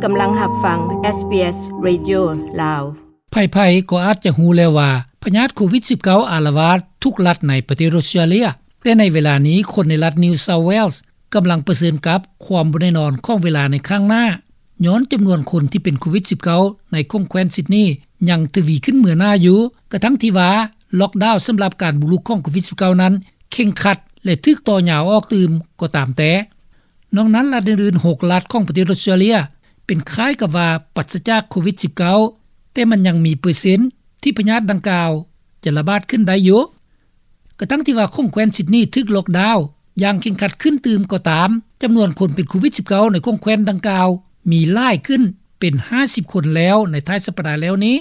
ກຳລັງຮັບຟັງ ເອສບີເອສ ເຣດິໂອ ລາວ. ໃຜໆກໍອາດຈະຮູ້ແລ້ວວ່າ ພະຍາດໂຄວິດສິບເກົ້າ ອາລະວາດທຸກລັດໃນປະເທດອົດສະຕຣາເລຍ, ແຕ່ໃນເວລານີ້ ຄົນໃນລັດ New South Wales ກຳລັງປະເຊີນກັບຄວາມບໍ່ແນ່ນອນຂອງເວລາໃນຂ້າງໜ້າ, ຍ້ອນຈຳນວນຄົນທີ່ເປັນໂຄວິດສິບເກົ້າ ໃນຂົງແຄວ້ນຊິດນີຍັງທະວີຂຶ້ນເໝືອໜ້າຢູ່, ກະທັ່ງທີ່ວ່າ ລ໊ອກດາວສຳລັບການບຸກລຸກຂອງໂຄວິດສິບເກົ້ານັ້ນເຄັ່ງຄັດ ແລະ ຖືກຕໍ່ຍາວອອກຕື່ມກໍຕາມແຕ່. ນອກນັ້ນ, ລັດອື່ນໆ ຫົກລັດຂອງປະເທດອົດສະຕຣາເລຍ ເປັນຄ້າຍກັບວ່າປາສະຈາກໂຄວິດສິບເກົ້າ, ແຕ່ມັນຍັງມີເປີເຊັນທີ່ພະຍາດດັ່ງກ່າວຈະລະບາດຂຶ້ນໄດ້ຢູ່. ກະທັ່ງທີ່ວ່າຂົງແຄວ້ນຊິດນີຖືກລ໊ອກດາວຢ່າງເຄັ່ງຄັດຂຶ້ນຕື່ມກໍຕາມ, ຈຳນວນຄົນເປັນໂຄວິດສິບເກົ້າ ໃນຂົງແຄວ້ນດັ່ງກ່າວມີຫຼາຍຂຶ້ນເປັນຫ້າສິບຄົນແລ້ວໃນທ້າຍສັບປະດາແລ້ວນີ້.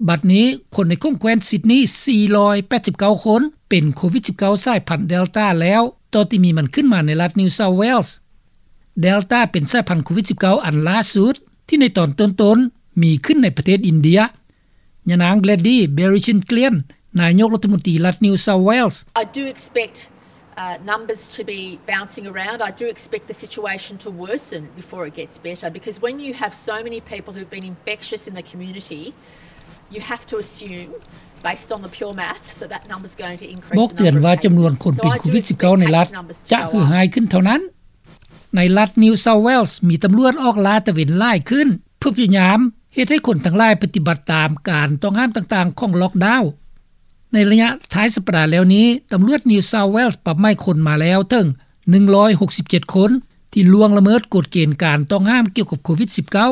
ບັດນີ້, ຄົນໃນຂົງແຄວ້ນຊິດນີ ສີ່ຮ້ອຍແປດສິບເກົ້າຄົນ ເປັນໂຄວິດສິບເກົ້າສາຍພັນເດລຕາແລ້ວ, ຕໍ່ທີ່ມີມັນຂຶ້ນມາໃນລັດ New South Wales. ເດລຕາເປັນສາຍພັນໂຄວິດສິບເກົ້າອັນລ່າສຸດ ທີ່ໃນຕອນຕົ້ນໆມີຂຶ້ນໃນປະເທດອິນເດຍ. ຍານາງ Gladys Berejiklian ນາຍົກລັດຖະມົນຕີລັດ New South Wales. I do expect, uh, numbers to be bouncing around. I do expect the situation to worsen before it gets better, because when you have so many people who've been infectious in the community, you have to assume, based on the pure maths, that that number's going to increase. ບອກເຕືອນວ່າຈຳນວນຄົນເປັນໂຄວິດສິບເກົ້າໃນລັດຈະເຫື່ອຫາຍຂຶ້ນເທົ່ານັ້ນ. ໃນລັດ New South Wales ມີຕຳຫຼວດອອກລາດຕະເວນຫຼາຍຂຶ້ນ ເພື່ອພະຍາຍາມເຮັດໃຫ້ຄົນທັງຫຼາຍປະຕິບັດຕາມການຕ້ອງຫ້າມຕ່າງໆຂອງລ໊ອກດາວ. ໃນໄລຍະທ້າຍສັບປະດາແລ້ວນີ້, ຕຳຫຼວດ New South Wales ປັບໃໝຄົນມາແລ້ວເຖິງໜຶ່ງຮ້ອຍຫົກສິບເຈັດຄົນ ທີ່ລ່ວງລະເມີດກົດເກນການຕ້ອງຫ້າມກ່ຽວກັບໂຄວິດສິບເກົ້າ.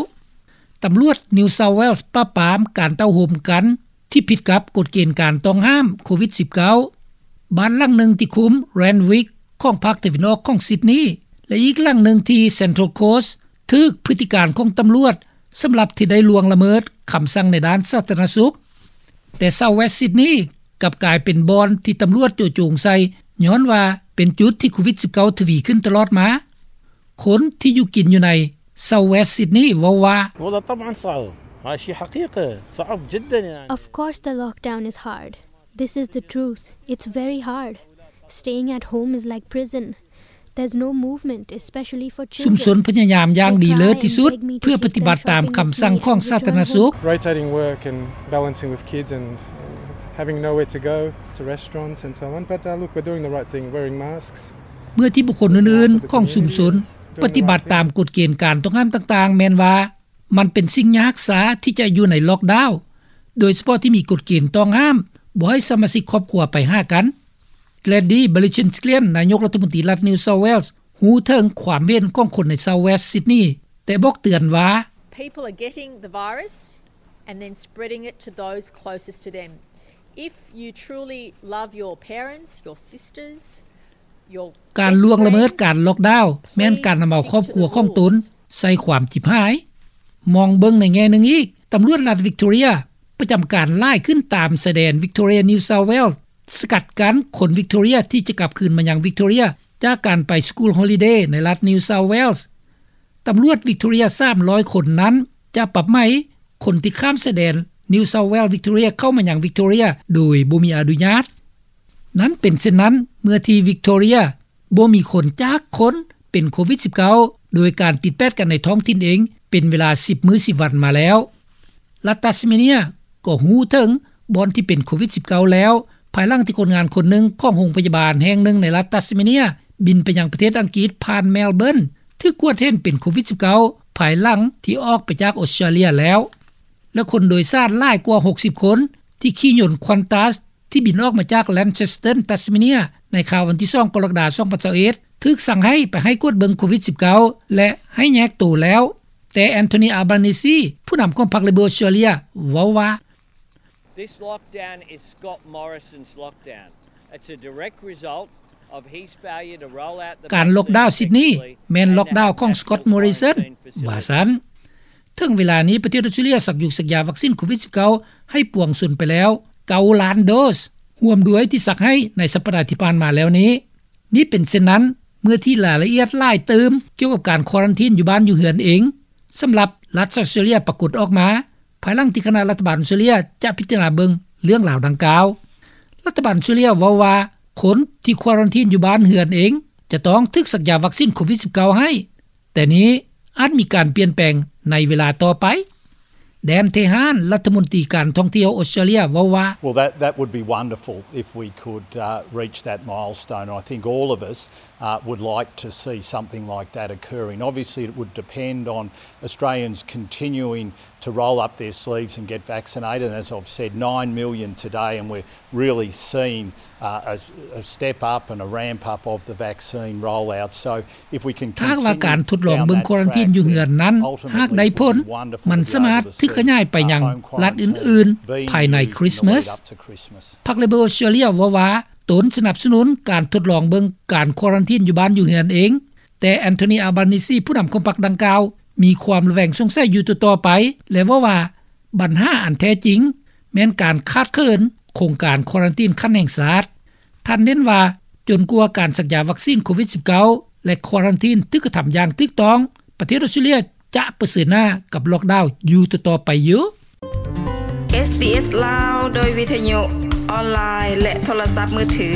ຕຳຫຼວດ New South Wales ປາບປາມການເຕົ້າໂຮມກັນ ທີ່ຜິດກັບກົດເກນການຕ້ອງຫ້າມໂຄວິດສິບເກົ້າ. ບ້ານຫຼັງໜຶ່ງທີ່ຄຸ້ມ Randwick ຂອງພາກຕາເວັນອອກຂອງຊິດນີ ແລະ ອີກຫຼັງໜຶ່ງທີ່ Central Coast ຖືກພຶດຕິການຂອງຕຳຫຼວດ ສຳລັບທີ່ໄດ້ລ່ວງລະເມີດຄຳສັ່ງໃນດ້ານສາທາລະນະສຸກ. ແຕ່ South West Sydney ກັບກາຍເປັນບ່ອນທີ່ຕຳຫຼວດໂຈະໂຈງໃສ່ ຍ້ອນວ່າເປັນຈຸດທີ່ໂຄວິດສິບເກົ້າທະວີຂຶ້ນຕະຫຼອດມາ. ຄົນທີ່ຢູ່ກິນຢູ່ໃນ South West Sydney ເວົ້າວ່າ والله طبعًا صعب. هاي شي حقيقة. صعب جدًا يعني. Of course the lockdown is hard. This is the truth. It's very hard. Staying at home is like prison. There's no movement, especially for children. ຊຸມຊົນພະຍາຍາມຢ່າງດີເລີດທີ່ສຸດ ເພື່ອປະຕິບັດຕາມຄຳສັ່ງຂອງສາທາລະນະສຸກ. Rotating work and balancing with kids and having nowhere to go to restaurants and so on. But, uh, look, we're doing the right thing, wearing masks. ເມື່ອທີ່ບຸກຄົນອື່ນໆຂອງຊຸມຊົນປະຕິບັດຕາມກົດເກນການຕ້ອງຫ້າມຕ່າງໆ ແມ່ນວ່າມັນເປັນສິ່ງຍາກຊາທີ່ຈະຢູ່ໃນລ໊ອກດາວ, ໂດຍສະເພາະທີ່ມີກົດເກນຕ້ອງຫ້າມບໍ່ໃຫ້ສະມາຊິກຄອບຄົວໄປຫາກັນ. Gladys Berejiklian ນາຍົກລັດຖະມົນຕີລັດ New South Wales ຮູ້ເຖິງຄວາມເຫັນຂອງຄົນໃນ South West Sydney ແຕ່ບອກເຕືອນວ່າ People are getting the virus and then spreading it to those closest to them. If you truly love your parents, your sisters, ການລ່ວງລະເມີດການລ໊ອກດາວ ແມ່ນການນຳເອົາຄອບຄົວຂອງຕົນໃສ່ຄວາມຈິບຫາຍ. ມອງເບິ່ງໃນແງ່ໜຶ່ງອີກ, ຕຳຫຼວດລັດ Victoria ປະຈຳການຫຼາຍຂຶ້ນຕາມຊາຍແດນ Victoria New South Wales ສະກັດກັ້ນຄົນ Victoria ທີ່ຈະກັບຄືນມາຍັງ Victoria ຈາກການໄປ School Holiday ໃນລັດ New South Wales. ຕຳຫຼວດ Victoria ສາມຮ້ອຍຄົນນັ້ນ ຈະປັບໃໝຄົນທີ່ຂ້າມຊາຍແດນ New South Wales Victoria ເຂົ້າມາຍັງ Victoria ໂດຍບໍ່ມີອະນຸຍາດ. ນັ້ນເປັນເຊັ່ນນັ້ນ ເມື່ອທີ່ Victoria ບໍ່ມີຄົນຈັກຄົນເປັນໂຄວິດສິບເກົ້າ ໂດຍການຕິດແປດກັນໃນທ້ອງຖິ່ນເອງເປັນເວລາສິບມື້ສິບວັນມາແລ້ວ. ລັດ Tasmania ກໍຮູ້ເຖິງບ່ອນທີ່ເປັນໂຄວິດສິບເກົ້າແລ້ວ ພາຍຫຼັງທີ່ຄົນງານຄົນໜຶ່ງຂອງໂຮງພະຍາບານແຫ່ງໜຶ່ງໃນລັດ Tasmania ບິນໄປຍັງປະເທດອັງກິດຜ່ານ Melbourne ຖືກກວດເຫັນເປັນໂຄວິດສິບເກົ້າ ພາຍຫຼັງທີ່ອອກໄປຈາກອົດສະຕຣາເລຍແລ້ວ. ແລະ ຄົນໂດຍສານຫຼາຍກວ່າຫົກສິບຄົນ ທີ່ຂີ່ຍົນ Qantas ທີ່ບິນອອກມາຈາກ Launceston Tasmania ໃນຄ່ຳວັນທີສອງ ກໍລະກະດາ ສອງພັນຊາວເອັດ ຖືກສັ່ງໃຫ້ໄປໃຫ້ກວດເບິ່ງໂຄວິດສິບເກົ້າ ແລະ ໃຫ້ແຍກໂຕແລ້ວ. ແຕ່ Anthony Albanese ຜູ້ນຳຂອງພັກ Labor Australia ເວົ້າວ່າ This lockdown is Scott Morrison's lockdown. It's a direct result of his failure to roll out the vaccine effectively and the habit of quarantine facilities. ການລ໊ອກດາວຊິດນີ ແມ່ນລ໊ອກດາວຂອງ Scott Morrison ວ່າຊັ້ນ. ເຖິງເວລານີ້ ປະເທດອົດສະຕຣາເລຍສັກຢູສັກຢາວັກຊິນໂຄວິດສິບເກົ້າ ໃຫ້ປວງຊົນໄປແລ້ວເກົ້າລ້ານໂດສ, ຮ່ວມດ້ວຍທີ່ສັກໃຫ້ໃນສັບປະດາທີ່ຜ່ານມາແລ້ວນີ້. ນີ້ເປັນເຊັ່ນນັ້ນ ເມື່ອທີ່ລາຍລະອຽດຫຼາຍຕື່ມກ່ຽວກັບການຄວາຣັນທີນຢູ່ບ້ານຢູ່ເຮືອນເອງ ສຳລັບລັດອອສເຕຣເລຍປາກົດອອກມາ ພາຍຫຼັງທີ່ຄະນະລັດຖະບານອອສເຕຣເລຍຈະພິຈາລະນາເບິ່ງເລື່ອງລາວດັ່ງກ່າວ. ລັດຖະບານອອສເຕຣເລຍເວົ້າວ່າ ຄົນທີ່ຄວາຣັນທີນຢູ່ບ້ານເຮືອນເອງ ຈະຕ້ອງຖືກສັກຢາວັກຊິນໂຄວິດສິບເກົ້າໃຫ້. ແຕ່ນີ້ອາດມີການປ່ຽນແປງ ໃນເວລາຕໍ່ໄປ. ແດນ ເທຮານ ລັດຖະມົນຕີການທ່ອງທ່ຽວອົດສະຕຣາເລຍເວົ້າວ່າ Well, that, that would be wonderful if we could, uh, reach that milestone. I think all of us, uh, would like to see something like that occurring. Obviously, it would depend on Australians continuing to roll up their sleeves and get vaccinated. And as I've said, nine million today, and we're really seeing, uh, a, a step up and a ramp up of the vaccine rollout. So if we can continue down that track, then ultimately we would wonder if we could have a milestone. ຫາກວ່າການທົດລອງເບິ່ງຄວາຣັນທີນຢູ່ເຮືອນນັ້ນ ຫາກໄດ້ຜົນ, ມັນສາມາດຖືກຂະຫຍາຍໄປຍັງລັດອື່ນໆພາຍໃນຄຣິສມາສ. ພັກເລເບີອົດສະຕຣາເລຍເວົ້າວ່າ ຕົນສະໜັບສະໜູນການຄວາຣັນທີນຢູ່ບ້ານຢູ່ເຮືອນເອງ, ແຕ່ Anthony Albanese ຜູ້ນຳຂອງພັກດັ່ງກ່າວ ມີຄວາມລະແວງສົງໄສຢູ່ຕໍ່ໆໄປ ແລະ ເວົ້າວ່າ ບັນຫາອັນແທ້ຈິງ ແມ່ນການຂາດເຂີນໂຄງການຄວາຣັນທີນຂັ້ນແຫ່ງຊາດ. ທ່ານເນັ້ນວ່າ ຈົນກວ່າການສັກຢາວັກຊີນໂຄວິດ-19 ແລະ ຄວາຣັນທີນຖືກກະທຳຢ່າງຖືກຕ້ອງ, ປະເທດອົດສະຕຣາເລຍຈະປະເຊີນໜ້າກັບລ໊ອກດາວຢູ່ຕໍ່ໆໄປຢູ່. ເອສບີເອສ ລາວ ໂດຍວິທະຍຸ ອອນລາຍ ແລະ ໂທລະສັບມືຖື.